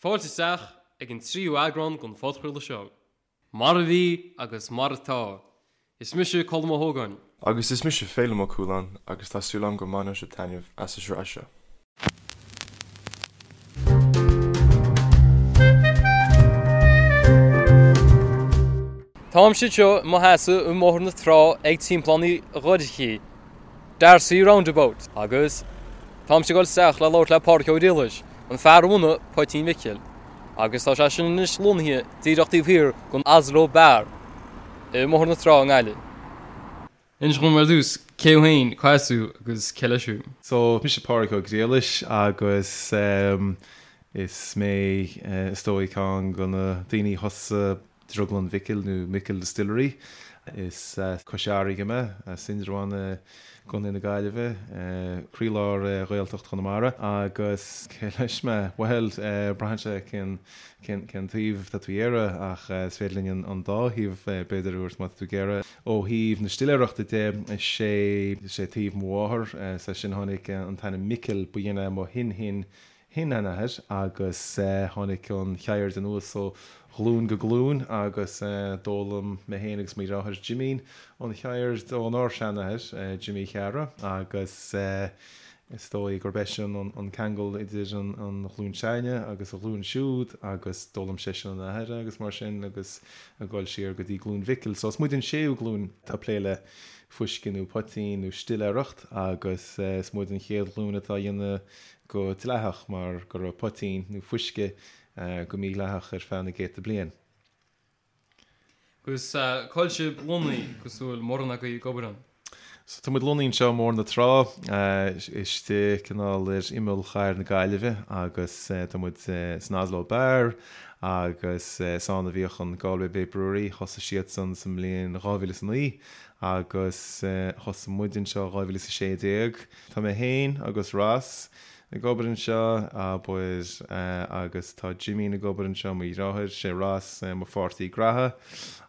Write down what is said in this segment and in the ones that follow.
Fáilte isteach ag an tríú eagrán den phodchraoladh seo, Mar a Bhí agus Mar Atá. Is mise Colm Ó hÓgáin. Agus is mise Féilim Ó Cualáin agus tá súil agam go mbainfidh sibh taitneamh as an sraith seo. Táimse anseo i mo sheasamh i mBóthar na Trá ag Timpeallán Uí Dhorchaí, D'Arcy Roundabout, agus táimse ag dul isteach le labhairt le Pádraic Ó Griallais, an fear a bhunaigh Poitín Mhicil, agus tá sé sin anois lonnaithe díreach taobh thiar den Aslo Bar i mBóthar na Trá i nGaillimh. Inis dom ar dtús cé thú féin, cá as thú agus cé leis thú? So, mise Pádraic Ó Griallais agus is mé is dóigh ceann de na daoine a thosaigh Drioglann Mhicil nó Micil Distillery. Is as Cois Fharraige mé, as Indreabhán i gContae na Gaillimhe, croílár Ghaeltacht Chonamara. Agus cé leis mé? Bhuel, braitheann sé cén cén taobh atá tú a iarraidh ach is féidir linn an dá thaobh b'fhéidir a thabhairt má tá tú ag iarraidh. Ó thaobh na stiléireachta de, is é is é taobh mo mháthar, is as sin a tháinig an t-ainm Micil, ba shin é mo shin-shin shin-sheanathair agus tháinig an cheird anuas ó ghlúin go glúin agus d'fhoghlaim mé féin agus mo dheartháir Jimín an cheird ónár seanathair, Jimí Cheara, agus is dóigh gurb eisean an ceangal idir an ghlúin s'againne agus an ghlúin siúd agus d'fhoghlaim seisean óna athair agus mar sin agus ag dul siar go dtí glúin Mhicil. So is muid an séú glúin atá ag plé le fuisce nó poitín nó stiléireacht agus is muid an chéad ghlúin atá á dhéanamh go dleathach mar go raibh poitín nó fuisce go mídhleathach ar feadh na gcéadta bliain. Agus cá bhfuil sibh lonnaithe agus an bhfuil mórán agaibh ag obair ann? So tá muid lonnaithe anseo i mBóthar na Trá, istigh cineál ar imeall chathair na Gaillimhe agus tá muid san Aslo Bar agus is ann a bhíodh an Galway Bay Brewery, thosaigh siadsan sa mbliain 2009 agus thosaigh muid anseo 2016. Tá mé féin agus Ross ag obair anseo, abair, agus tá Jimín ag obair anseo, mo dheartháir, sé Ross mo pháirtí graithe,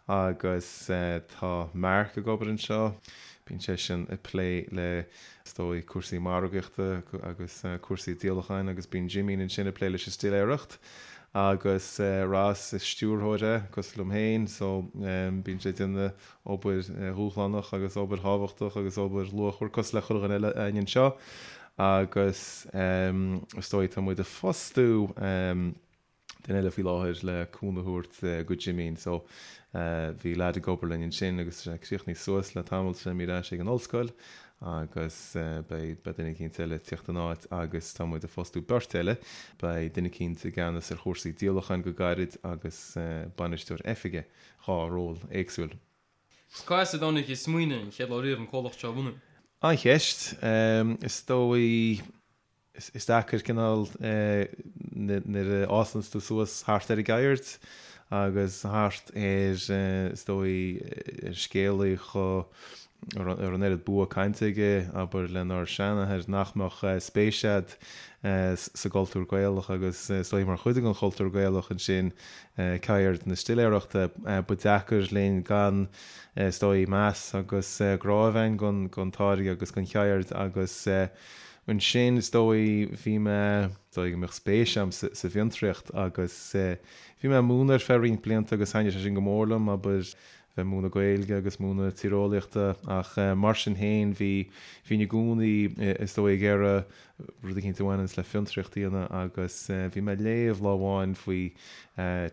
agus tá Mark ag obair anseo, bíonn seisean ag plé le, is dóigh, cúrsaí margaíochta agus cúrsaí díolacháin agus bíonn Jimín ansin ag plé leis an stiléireacht. Agus Ross, is stiúrthóir é, cosúil liom féin, so bíonn sé ag déanamh obair dhúshlánach agus obair thábhachtach agus obair luachmhar cosúil le chuile dhuine eile againn anseo agus is dóigh tá muid ag fostú duine eile faoi láthair le cúnamh a thabhairt go Jimín so bhí leaid ag obair linn ansin agus tá sé críochnaithe suas le tamall tá sé imithe ar ais ag an ollscoil agus beidh duine eicínt eile ag tíocht ina áit agus tá muid ag fostú beirt eile beidh duine eicínt i gceannas ar chúrsaí díolacháin go gairid agus bainisteoir oifige 2 ról éagsúil. Cá as a dtáinig an smaoineamh an chéad lá riamh an comhlacht seo a bhunú? An-cheist. Is dóigh, is deacair cineál nuair a fhásanns tú suas thart ar an gceird agus thart ar, is dóigh, ar scéalaí chomh, a raibh an oiread bua cainte aige, abair, lenár seanathair, nach mbeadh spéis a'd sa gcultúr Gaelach agus is dóigh mar chuid den chultúr Gaelach ansin ceird na stiléireachta. Ba deacair linn gan, is dóigh, meas agus grá a bheith a'inn don táirge agus don cheird agus ansin is dóigh bhí mé, is dóigh go mbeadh spéis a'm sa bhfiontraíocht agus bhí mé ag múineadh ar feadh roinnt blianta agus thaitnigh sé sin go mór liom, abair, bheith ag múineadh Gaeilge agus múineadh tíreolaíochta ach mar sin féin bhí, bhínn i gcónaí is dóigh ag iarraidh rud eicínt a bhaineanns le fiontraíocht a dhéanamh agus bhí mé ag léamh lá amháin faoi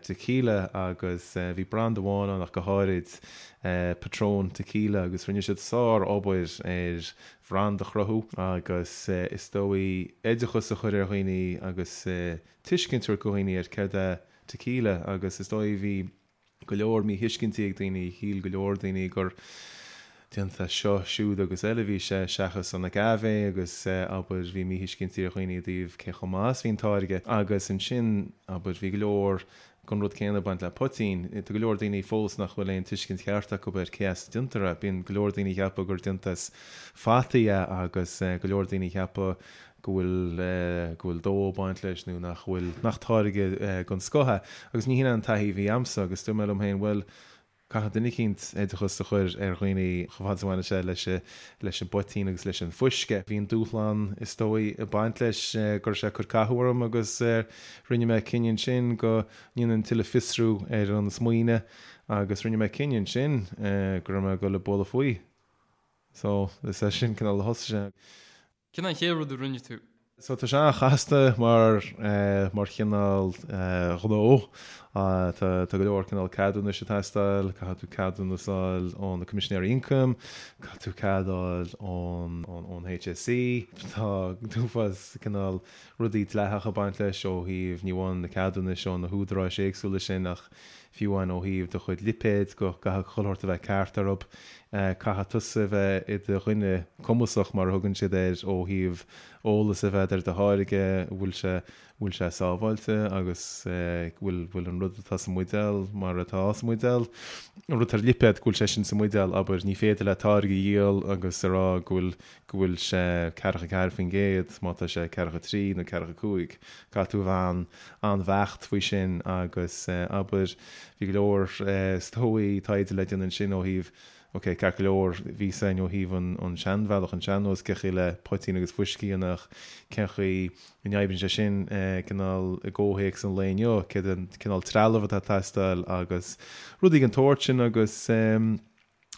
tequila agus bhí branda amháin ann ach go háirid, Patron Tequila agus rinne siad sár obair ar bhranda a chruthú agus is dóigh oideachas a chur ar dhaoine agus tuiscint a thabhairt do dhaoine ar céard é tequila agus is dóigh bhí go leor míthuiscintí ag daoine, shíl go leor daoine gur déanta as seo, siúd agus eile a bhí sé, seachas an agave agus, abair, bhí míthuiscintí ar dhaoine i dtaobh cé chomh maith is a bhí an táirge. Agus ansin, abair, bhí go leor den rud céanna ag baint le poitín. Tá go leor daoine fós nach bhfuil aon tuiscint cheart acu ar cé as a déantar é. Bíonn go leor daoine ag ceapadh gur déanta as fataí é agus go leor daoine ag ceapadh go bhfuil go bhfuil dó ag baint leis nó nach bhfuil, nach táirge den scoth é. Agus ní hin é an taithí a bhí a'msa agus dúirt mé liom féin, bhuel, Caithfidh duine eicínt oideachas a chur ar dhaoine chomh fada is a bhaineann sé leis leis an bpoitín agus leis an bhfuisce. Bhí an dúshlán is dóigh ag baint leis go raibh sé ag cur cathú orm agus rinne mé cinneadh ansin go ndéanfainn tuilleadh fiosrú ar an smaoineamh agus rinne mé cinneadh ansin go raibh mé ag dul ag bualadh faoi. So, is é sin cineál a thosaigh sé. Cén an chéad rud a rinne tú? So tá sé an-chasta mar mar chineál gnó. Tá tá go leor cineál ceadúnais ag teastáil, caithfidh tú ceadúnas a fháil ó na Coimisinéirí Ioncaim, caithfidh tú cead a fháil ón ón HSE. Tá an t-uafás cineál rudaí dleathacha ag baint leis ó thaobh ní amháin na ceadúnais ó na húdaráis éagsúla sin ach fiú amháin ó thaobh do chuid lipéad go gcaithfidh chuile shórt a bheith ceart orthu. Caithfidh tusa a bheith i do dhuine cumasach mar a thugann siad air ó thaobh eolas a bheith ar do tháirge, bhfuil sé bhfuil sé sábháilte agus bhfuil bhfuil an rud atá sa mbuidéal mar atá sa mbuidéal. An rud atá ar lipéad go bhfuil sé sin sa mbuidéal, abair, ní féidir leat táirge a dhíol agus a rá go bhfuil go bhfuil sé 44% má tá sé 43 nó 45. Caithfidh tú a bheith an-bheacht faoi sin agus abair, bhí go leor is dóigh taighde le déanamh ansin ó thaobh, ok, ceart go leor, bhí a fhios againn ó thaobh an seanbhealach, an sean-nós, cén chaoi le poitín agus fuisce a dhéanamh ach cén chaoi a n-oibríonn sé sin cineál i gcomhthéacs an lae inniu, céard an cineál trealamh atá ag teastáil agus rudaí den tsórt sin agus.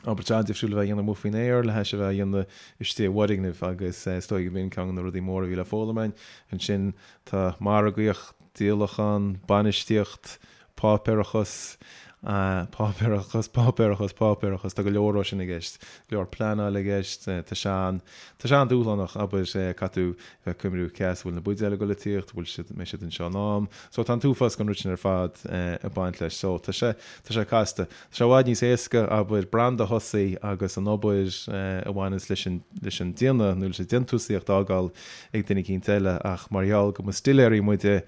Obair an-difriúil a bheith á dhéanamh amuigh faoin aer le hais a bheith á dhéanamh istigh i bhfoirgneamh agus is dóigh gurb in ceann de na rudaí móra a bhí le foghlaim againn. Ansin tá margaíocht, díolachán, bainistíocht, páipéarachas, páipéarachas, páipéarachas, páipéarachas, tá go leor dhó sin i gceist, go leor pleanáil i gceist, tá sé an, tá sé an-dúshlánach, abair, caithfidh tú bheith ag cuimhniú cé as a bhfuil na buidéil ag dul ag tíocht, bhfuil siad, mbeidh siad anseo in am. So tá an t-uafás den rud sin ar fad ag baint leis. So tá sé, tá sé casta. Tá sé i bhfad níos éasca, abair, branda a thosaí agus an obair a bhaineanns leis an, leis an déanamh nó leis an déantúsaíocht a fhágáil ag duine eicínt eile ach mar gheall go mba stiléirí muide,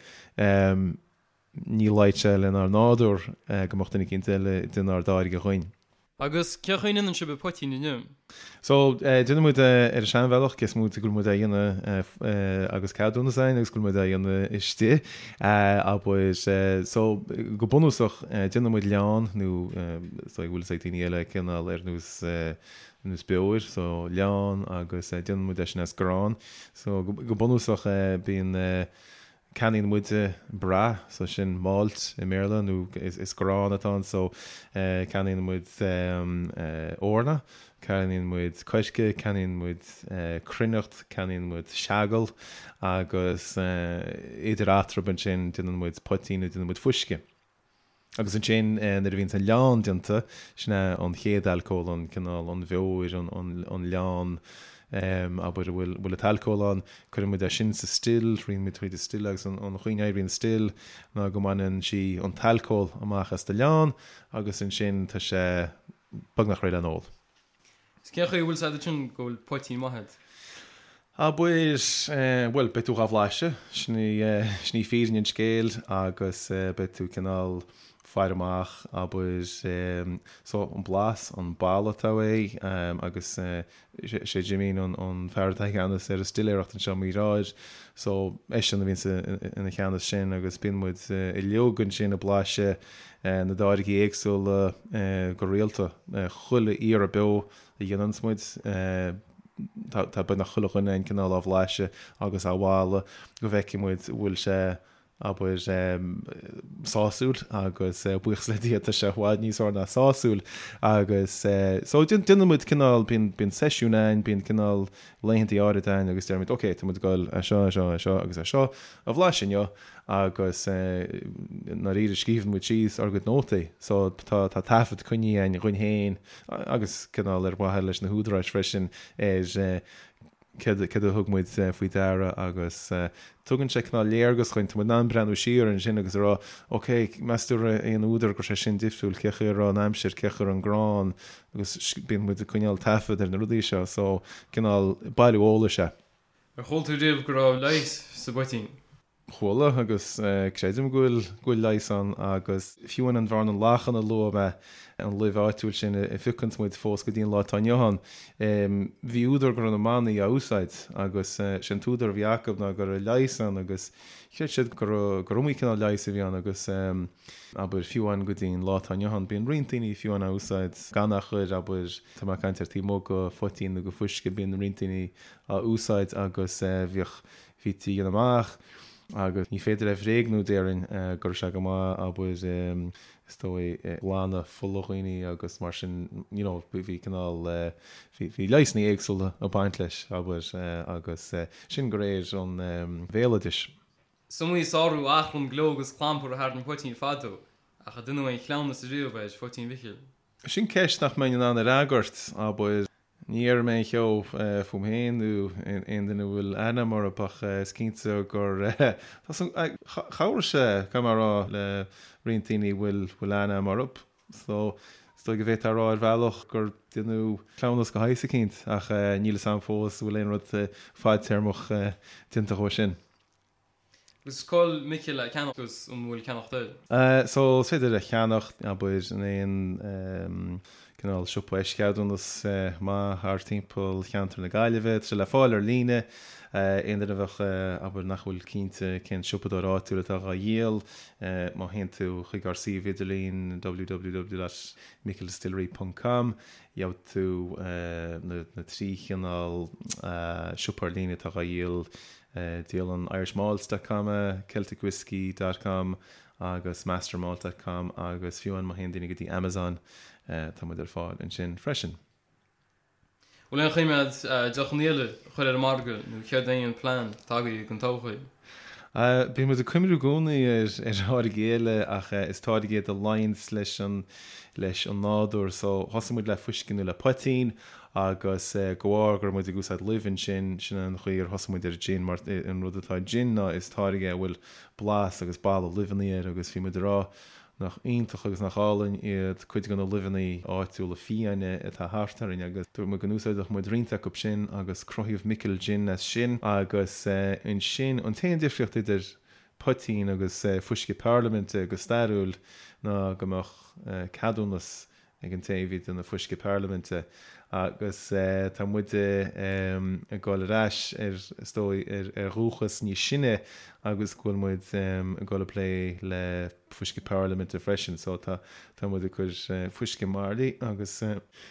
ní luífeadh sé lenár nádúr go mbeadh duine eicínt eile ag déanamh ár dtáirge dhuinn. Agus cén chaoi a ndéanann sibh an poitín inniu? So, déanann muid é ar an seanbhealach, cé is móite go bhfuil muid á dhéanamh agus ceadúnas againn agus go bhfuil muid á dhéanamh istigh, abair. So, go bunúsach, déanann muid leann, nó is dóigh go bhfuil fhios ag daoine eile cineál ar nós, ar nós beoir, so leann agus déanann muid é sin as grán. So, go bunúsach, bíonn. Ceannaíonn muide brath, so sin malt i mBéarla, nó is grán atá ann, so ceannaíonn muid eorna, ceannaíonn muid coirce, ceannaíonn muid cruithneacht, ceannaíonn muid seagal agus idir eatarthu ansin déanann muid poitín nó déanann muid fuisce. Agus ansin nuair a bhíonns an leann déanta, sin é an chéad alcól, an cineál, an bheoir, an leann, abair, a bhfuil an t-alcól ann, cuireann muid é sin sa still, ritheann muid tríd an still agus an chaoi a n-oibríonn still ná go mbaineann sí an t-alcól amach as do leann agus ansin tá sé beagnach réidh le n-ól. Is cén chaoi a bhfuil 's agat ansin go bhfuil poitín maith agat? Abair, bhuel, beidh tú dhá bhlaiseadh, sin í, sin í fírinne an scéil agus beidh tú cineál faire amach, abair, so an blas, an boladh atá uaidh agus sé Jimín an fear atá i gceannas ar an stiléireacht anseo i nGaoth Dobhair, so eisean a bhíonns ina cheannas sin agus bíonn muid uilig ansin ag blaiseadh na dtáirgí éagsúla go rialta. Chuile iarraidh beo a dhéananns muid, tá beagnach chuile dhuine againn cineál á bhlaiseadh agus á mholadh go bhfeicfidh muid an bhfuil sé, abair, sásúil agus buíochas le Dia tá sé i bhfad níos fearr ná sásúil agus so déanann muid cineál, bíonn, bíonn seisiún againn, bíonn cineál laethanta áirid againn agus deirimid ok, tá muid ag dul é seo, é seo, é seo agus é seo a bhlaiseadh inniu agus i ndáiríre scríobhann muid síos ár gcuid nótaí so tá tá taifead coinnithe againn dhúinn féin agus cineál ar mhaithe leis na húdaráis freisin ar céard céard a thug muid faoi deara agus tugann sé cineál léargas dhuinn, tá muid in ann breathnú siar ansin agus a rá ok meas tú raibh aon údar go raibh sé sin difriúil, cé chaoi a raibh an aimsir, cé chaoi a raibh an grán agus bíonn muid ag coinneáil taifead ar na rudaí seo so cineál bailiú eolais é. Ar chuala tú riamh go raibh leigheas sa bpoitín? Chuala agus creidim go bhfuil go bhfuil leigheas ann agus fiú amháin an bhearna lachan a luaigh mé, an luibh áitiúil sin a phiocanns muid fós go dtí an lá atá inniu ann, bhí údar go raibh na manaigh á úsáid agus sé an t-údar a bhí acu ná go raibh leigheas ann agus chreid siad gur gur iomaí cineál leighis a bhí ann agus abair fiú amháin go dtí an lá atá inniu ann bíonn roinnt daoine fiú amháin á úsáid gan a chur abair tá mé ag caint ar taobh amuigh de phoitín nó de fuisce bíonn roinnt daoine á úsáid agus bhíodh Bhítí a dhéanamh amach agus ní féidir é a bhréagnú déarfainn go raibh sé go maith abair is dóigh ag glanadh fola dhaoine agus mar sin you know bhí cineál bhí bhí leigheasanna éagsúla ag baint leis abair agus sin de réir an bhéaloidis. Is iomaí sárú achrann gleo agus clampar a tharraing poitín fadó ach ar deineadh aon chleamhnas ariamh ar phoitín Mhicil. Sin ceist nach mbeinn in ann a fhreagairt, abair. Ní dhéarfaidh mé aon cheo fúm féin nó aon duine a bhfuil aithne agam orthu ach is cinnte gur chabhraigh sé, caithfidh mé a rá, le roinnt daoine a bhfuil aithne agam orthu. So, is dóigh go bhféadfá a rá ar bhealach gur deineadh cleamhnas de shaghas eicínt ach níl fhios agam fós an bhfuil aon rud fadtéarmach déanta dhó sin. Agus cá bhfuil Micil le ceannach agus an bhfuil ceannacht air? So, is féidir a cheannach, abair, in aon cineál siopa eischeadúnas maith thart timpeall cheantar na Gaillimhe. Tá sé le fáil ar líne. Aon duine a bheadh, abair, nach bhfuil cinnte cén siopadóir áitiúil atá dhá dhíol, má théann tú chuig ár suíomh idirlín www.micildistillery ponc com, gheobhaidh tú na 3 chineál siopa ar líne atá dhá dhíol Díolann Irishmalts dot com é, Celticwhiskey dot com agus Mastermalt dot com agus fiú amháin má théann daoine go dtí Amazon tá muid ar fáil ansin freisin. Bhfuil aon choimeád deochanna eile a chur ar an margadh nó céard é an plean atá agaibh don todhchaí? Bíonn muid ag cuimhniú i gcónaí ar tháirgí eile ach is táirgí iad a luíonns leis an leis an nádúr so thosaigh muid le fuisce nó le poitín Agus de bharr go raibh muid ag úsáid luibh ansin, sin an chaoi ar thosaigh muid ar gin, mar an rud atá i gin ná is táirge é a bhfuil blas agus boladh luibheanna air agus bhí muid ag rá nach iontach agus nach álainn iad cuid de na luibheanna áitiúla fiáine atá thart orainn agus dúirt muid go n-úsáidfeadh muid roinnt acu sin agus cruthaíodh Micil Gin as sin agus ansin an t-aon difríocht idir poitín agus fuisce parlaiminte go stairiúil ná go mbeadh ceadúnas ag an té a bhí ag déanamh fuisce parlaiminte agus tá muide ag dul ar ais ar, is dóigh, ar dhúchas níos sine agus go bhfuil muid ag dul ag plé le fuisce parlaiminte freisin so tá tá muid ag cur fuisce i mbairillí agus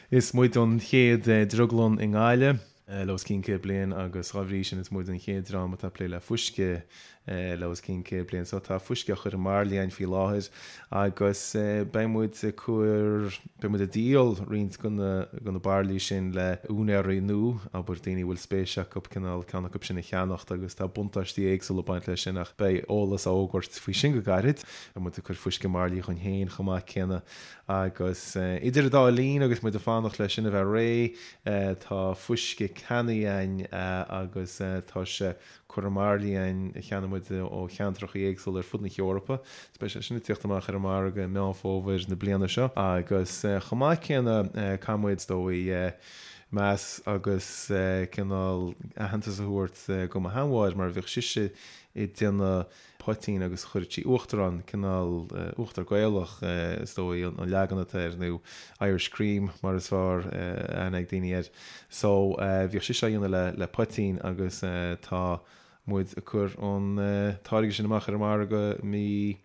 is muid an chéad drioglann i nGaillimh. le os cionn 100 bliain agus dá bhrí sin is muid an chéad dream atá ag plé le fuisce le os cionn 100 bliain. So tá fuisce á chur i mbairillí againn faoi láthair agus beidh muid ag cur, beidh muid ag díol roinnt de na, de na bairillí sin le úinéirí nua, abair daoine a bhfuil spéis acu cineál ceann acu sin a cheannacht agus tá buntáistí éagsúla ag baint leis sin ach beidh eolas á fhógairt faoi sin go gairid. Beidh muid ag cur fuisce i mbairillí dhúinn féin chomh maith céanna Agus idir an dá linn agus muid ag fanacht leis sin a bheith réidh, tá fuisce cannaí againn agus tá sé curtha i mbairillí againn a cheannaigh muid ó cheantracha éagsúla ar fud na hEorpa. Is beidh sé sin ag tíocht amach ar an margadh i Meán Fómhair na bliana seo. Agus chomh maith céanna caithfidh muid, is dóigh, meas agus cineál aitheantas a thabhairt go mo sheanmháthair mar bhíodh sise ag déanamh poitín agus chuireadh sí uachtar ann, cineál uachtar Gaelach is dóigh an leagan atá air nó Irish cream mar is fearr aithne ag daoine air. So bhíodh sise á dhéanamh le le poitín agus tá muid ag cur an táirge sin amach ar an margadh mí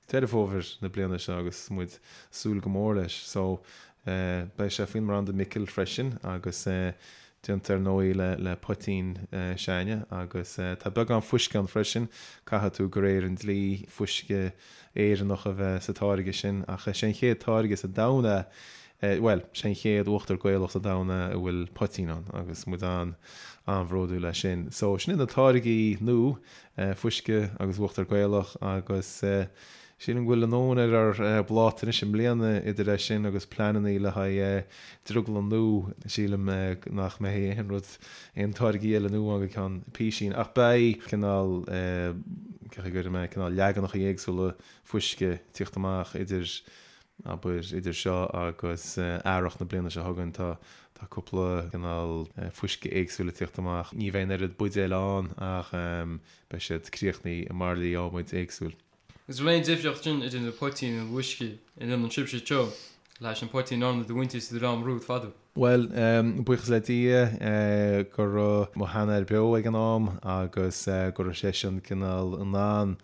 Deireadh Fómhair na bliana seo agus muid ag súil go mór leis. So beidh sé faoin mbranda Micil freisin agus déanta ar ndóigh le le poitín s'againne agus tá beagán fuisce ann freisin, caithfidh tú de réir an dlí fuisce Éireannach a bheith sa táirge sin ach is é an chéad táirge sa domhan é, bhuel, sé an chéad uachtar Gaelach sa domhan é a bhfuil poitín ann agus muid an an-bhródúil as sin. So sin iad na táirgí nua, fuisce agus uachtar Gaelach agus Sílim go bhfuil a ndóthain ar ár bpláta anois i mbliana idir é sin agus pleananna le haghaidh drioglann nua. Sílim nach mbeidh aon rud, aon táirgí eile nua ann go ceann písín ach beidh cineál, cén chaoi a gcuirfidh mé, cineál leaganacha éagsúla fuisce ag tíocht amach idir. Abair, idir seo agus earrach na bliana seo chugainn, tá tá cúpla cineál fuisce éagsúil ag tíocht amach. Ní bheidh an oiread buidéil ann ach beidh siad críochnaithe i mbairillí adhmaid éagsúil. Is bhfuil aon difríocht sin idir na poitín nó uisce a ndéanann sibhse anseo leis an poitín a ndearna do mhuintir sa dream romhat fadó? Bhuel, buíochas le Dia go raibh mo sheanathair beo ag an am agus go raibh seisean cineál in ann,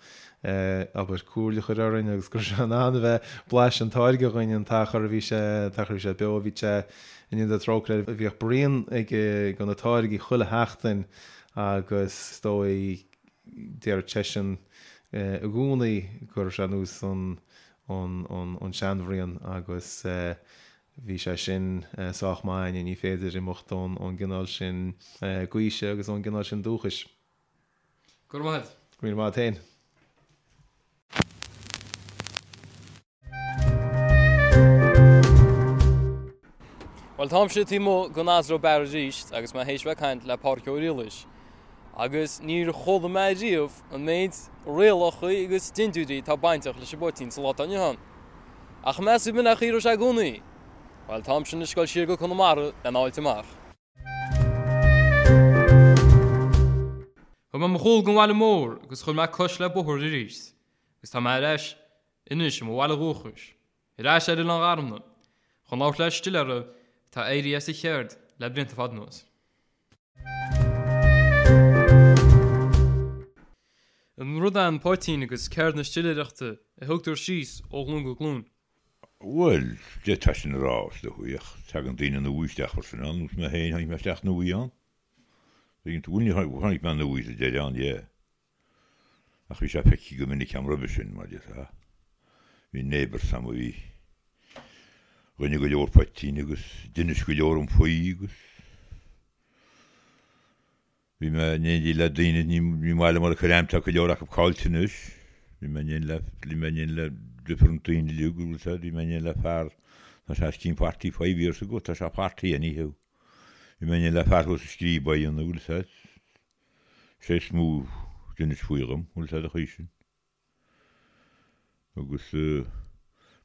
abair, comhairle a chur orainn agus go raibh sé in ann a bheith blaiseadh an táirge dhúinn an t-achar a bhí sé, an t-achar a bhí sé beo. Bhí sé, i ndéidh trócaire air, bhíodh braon aige de na táirgí chuile sheachtain agus is dóigh, Déarfadh seisean i gcónaí go raibh sé ar nós an seanbhraon agus bhí sé sin sách maith againne, ní féidir imeacht ón gcineál sin gaoise agus ón gcineál sin dúchais. Go raibh maith agat. Go raibh míle maith agat féin. Bhuel, táimse taobh amuigh den Asro Bar arís agus mé théis bheith ag caint le Pádraic Ó Riallais. Agus níor chuala mé riamh an méid rialacha agus dintiúirí atá bainteach leis an bpoitín sa lá atá inniu ann. Ach meas tú b'in é an chaoi a raibh sé i gcónaí? Bhuel, táimse anois ag dul siar go Conamara lena fháilt amach. Thug mé mo chúl don bhaile mór agus chuir mé cos le bóthar arís agus tá mé ar ais anois i mo bhaile dhúchais, ar ais ar Oileán Gharmna, chun labhairt le stiléara atá éirithe as a cheird le blianta fada anuas. An rud é an poitín agus ceird na stiléireachta a thugtar síos ó ghlúin go glúin? Bhuel, d'fhéadfá sin a rá, is dóigh, ach tagann daoine nua isteach freisin ann, nós mé féin, tháinig mé isteach nua ann. Bhuel, tháinig mé nua sa deireadh ann, yeah. Ach bhí sé feicthe go minic a'm roimhe sin, mar déarfá. Bhí neighbours a'm a bhí, rinne go leor poitín agus d'inis go leor dhom faoi agus bhí mé in éindí le daoine, ní maith liom a chur ainm, tá go leor acu caillte anois, bhí mé in éindí le, bhí mé in éindí le different daoine uilig, bhfuil 'fhios a'd, bhí mé in éindí le fear, tá sé os cionn 45 years ago, tá sé 40 anyhow, bhí mé in éindí le fear thuas sa Scríb á dhéanamh, bhfuil 'fhios a'd. Sé is mó d'inis faoi dhom, bhfuil 'fhios a'd an chaoi sin. Agus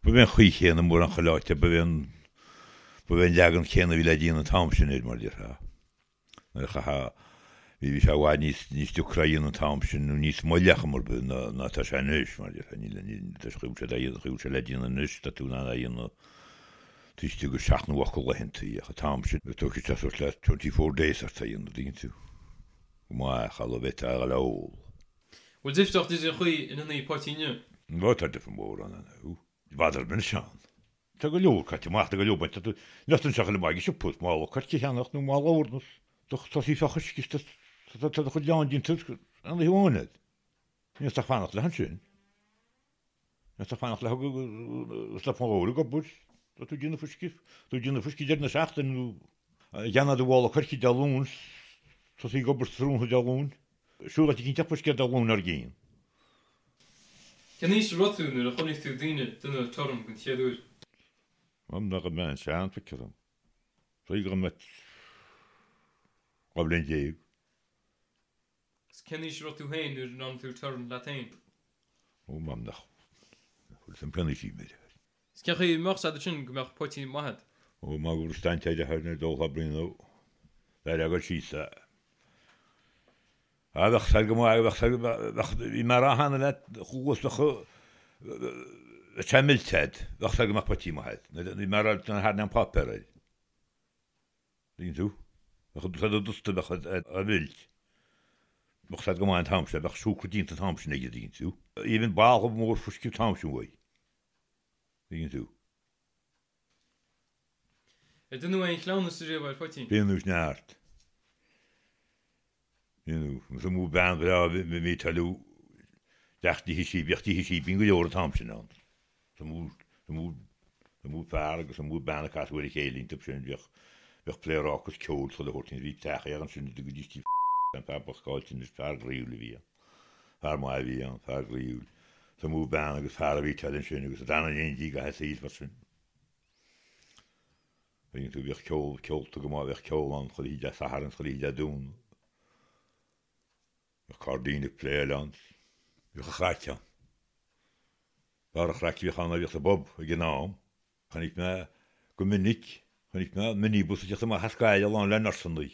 ba bhé an chaoi chéanna mórán chuile áit, ba bhé an, ba bhé an leagan céanna a bhí le déanamh an t-am sin air, mar a déarfá. Nuair a chaithfeá, bhí, bhí sé i bhfad níos, níos deacra a dhéanamh an t-am sin, nó níos moille ach mar bith ná, ná tá sé anois, mar a déarfá. Níl, níl, tá sé, chaoi sé dá dhéanamh, chaoi sé le déanamh anois, tá tú in ann é a dhéanamh taobh istigh de sheacht nó ocht de laethanta, ach an t-am sin, tógfaidh sé suas le 24 days ort é a dhéanamh, dtuigeann tú. Go maith, cha raibh bheith a dhul a ól. Bhfuil difríocht idir an chaoi a ndéantaí poitín inniu? Ó, tá difear mór ann, ó. I bhfad ar bith ann. Tá go leor caite amach, tá go leor bainte. Tá tú, níl tú anseo chuile maith ag an siopa, mála coirce a cheannacht nó mála eorna. Tá sí fá choisc is tá, tá do chuid leann déanta aon oíche amháin agat. Níl tú ach fanacht leis ansin. Níl tú ach fanacht le agus le fómhar ag obair. Tá tú ag déanamh fuisce, tá tú ag déanamh fuisce deireadh na seachtaine nó cheannaigh do mhála coirce Dé Luain, tosaigh ag obair tráthnóna Dé Luain. Siúl áit eicínt fuisce Dé Luain dár gcionn. Cén aois a raibh tú nuair a chonaic tú daoine ag déanamh torann den chéad uair? Am nach raibh mé an-sean, feictear dom. B'fhéidir go raibh mé 12 bhliain. Agus cén aois a raibh tú féin nuair a ndearna tú torann leat féin? Ó, m'am nach bhfuil san cén aois a bhí mé. Is cén chaoi a mbeadh sé ansin go mbeadh poitín maith agat? Ó, má go raibh staint ar a nó dul thar braon nó bheir agat síos é. Á, bheadh said go maith, bheadh said, bheadh, bhí mé a rá cheana leat, chuas, bheadh, bheadh sé millte agat, bheadh said go mbeadh poitín maith agat. Bhí mé a rá thar an páipéar air. Tuigeann tú? Bheadh said dusta, bheadh á mheilt. Bheadh said go maith an t-am sin, bheadh siúcra déanta an t-am sin aige, tuigeann tú? Even balla mór fuisce an t-am sin uaidh. Tuigeann tú? Ar deineadh aon chleamhnas riamh ar phoitín? Deineadh neart. Deineadh. Is iomaí bean bhreá a bhí ag toiliú teacht tithe sí, bhíodh tithe síbín go leor an t-am sin ann. Is iomaí fear agus is iomaí bean a casadh ar a chéile iontu sin, bhíodh, bhíodh pléaráca is ceol chuile shórt ann, bhí teach air ansin a dtugaidís Tigh an fear bocht caillte anois, fear groíúil a bhí ann, fear maith a bhí ann, fear groíúil. Is iomaí bean agus fear a bhí ag ansin agus a d'fhan in éindí i gcaitheamh a saoil freisin. Tuigeann tú, bhíodh ceol, ceolta go maith, bhíodh ceol ann chuile oíche Dé Sathairn is chuile oíche Dé Domhnaigh. Bhíodh cairdín ag pléáil ann, bhíodh an chraic ann. Barr an chraic a bhíodh ann a bhíodh sa bpub ag an am. Chonaic mé go minic, chonaic mé minibus ag teacht amach as Gaillimh lán le nursannaí.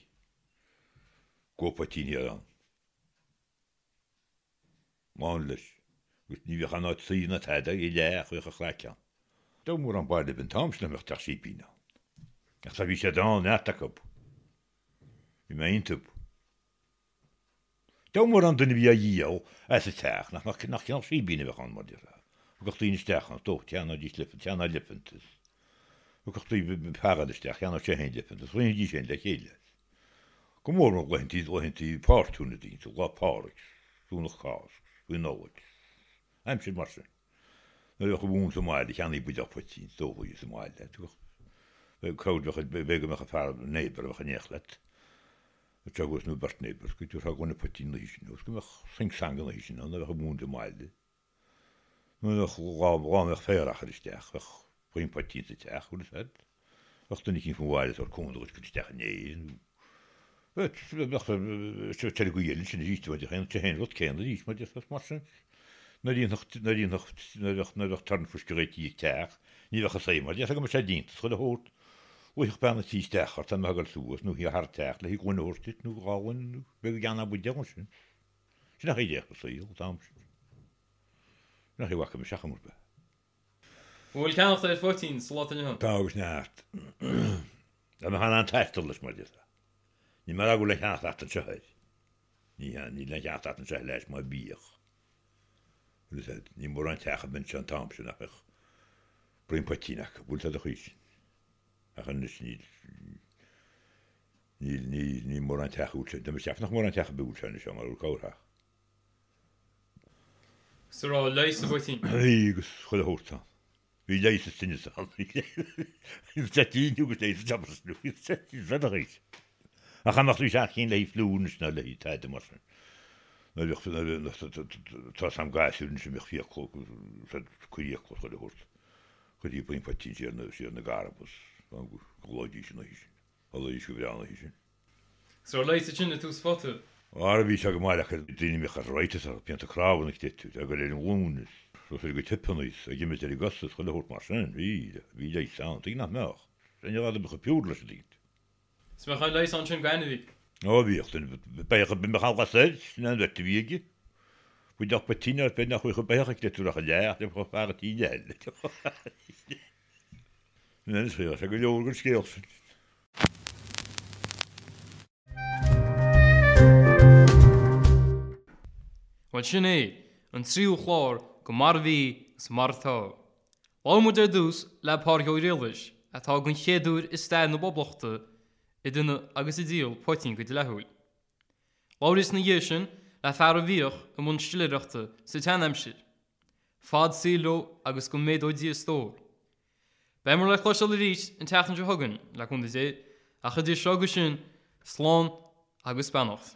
Go poitín thiar ann. Lán leis. Agus ní bhíodh aon áit suí ná tada i leith ach bhíodh an chraic ann. Ní raibh mórán baile an t-am sin nach mbeadh teach sípín ann. Ach tá bhí siad ann, neart acu. Bhí mé iontu. Ní raibh mórán duine a bhí á dhíol as an teach nach mbeadh nach cineál síbín a bheadh ann mar déarfá. Thiocfadh daoine isteach ann, is dócha, cheannóidís leifean, cheannódh leifeantas. Thiocfadh daoine fear eile isteach, cheannódh sé féin leifeantas, roinnfidís féin le chéile. Go mór mór laethantaí, laethantaí páirtiúna daoine, Lá Pádraig, Domhnach Cásc, faoi Nollaig, aimsir mar sin. Nuair a bheadh an mhóin sa mbaile, cheannaigh buidéal poitín, is dócha, sa mbaile. Tugadh, cabhair, b'fhéidir go mbeadh an fear, neighbour a bheadh in éineacht leat, ag teagasc nó beirt neighbours, go dtabharfá gloine poitín an oíche sin, agus go mbeadh sing sang an oíche sin ann, nuair a bheadh an mhóin sa mbaile. Nuair a bheadh lá, lá a mbeadh féar á chur isteach, bheadh puinn poitín sa teach, bhfuil fhios a'd. Bheadh duine eicínt faoin bhaile ag tabhairt cúnamh duit cur isteach in Éirinn, nó bheadh bheadh ar an gcaoi eile sin arís, bheadh an t-aon rud céanna arís, mar déarfá, mar sin. Nuair a dhéanfadh, nuair a dhéanfadh, nuair a bheadh, nuair a bheadh turn fuisce réitithe ag teach, ní bheadh a saoth mar déarfá go mbeadh sé déanta, is chuile shórt. Luífeadh bean an tí isteach ort, tá mé ag dul suas, nó thar an teach le gloine a thabhairt duit, nó dhá ghloine, nó b'fhéidir go gceannódh buidéal ansin. Sin an chaoi a dtéadh an saol, an t-am sin. Sin an chaoi a bhfaca mise chuma ar bith. An bhfuil ceannacht ar phoitín sa lá atá inniu ann? Tá agus neart. Tá mé in ann taisteal leis mar déarfá. Níl mé ag rá go bhfuil aon cheannacht ort anseo air. Ní hea, níl aon cheannacht ort anseo leis mar bhíodh. Bhfuil fhios a'd, ní mórán teach a bheadh anseo an t-am sin nach mbeadh braon poitín acu, bhfuil fhios a'd an chaoi sin. Ach anois níl, níl, níl, níl mórán teach a bhfuil sé, tá mé ag ceapadh nach mórán teach a bhfuil sé anois ann mar bhfuil corrtheach. 'S a raibh leigheas sa bpoitín. Bhí agus chuile shórt ann. Bhí leigheas is tinneas ann. Bhí toitín agus leigheas is tinneas. Ach cha mbeadh tú seacht cinn le haghaidh fliú anois ná le haghaidh tada mar sin. Nuair a bheadh, tá 'fhios a'm gasúir anois a mbeadh fiacla, cuir fhiacla chuile shórt, chuirtí braon poitín siar na, siar na gcarbas, go gcodlóidís an oíche sin. Chodlaídís go breá an oíche sin. 'S raibh leigheas ansin i tús phota. Ara bhí sé go maith le daoine a mbeadh arthritis orthu, pianta cnámha ag titeadh, ag dul ar an nglúin is, ag dul go tipeanna is, ag imirt ar a gcosa is chuile shórt mar sin, bhí, bhí leigheas ann, tuige nach mbeadh? Sin an rud a mbeadh pure leis an duine. 'S mbeadh an leigheas ansin d'ainmhí. Ó bhíodh, beidh a mbeadh an lasair, sin an bheirt a bhí aige. Buidéal poitín ar bith nach bhfuil beithíoch ag litir ach a leath, le fear an tí eile. Anois bhí sé go leor den scéal sin. Bhuel sin é, an tríú chlár de Mar a Bhí is Mar Atá. Labhair muid ar dtús le Pádraig Ó Griallais, atá den chéad uair i stair na Poblachta ag déanamh agus ag díol poitín go dleathúil. Labhraíos ina dhiaidh sin le fear a bhíodh i mbun stiléireachta sa tseanaimsir. Fad saoil leo agus go méadó Dia a stór. Beimid le cloisteáil arís an tseachtain seo chugainn, le cúnamh Dé, ach idir seo agus sin, slán agus beannacht.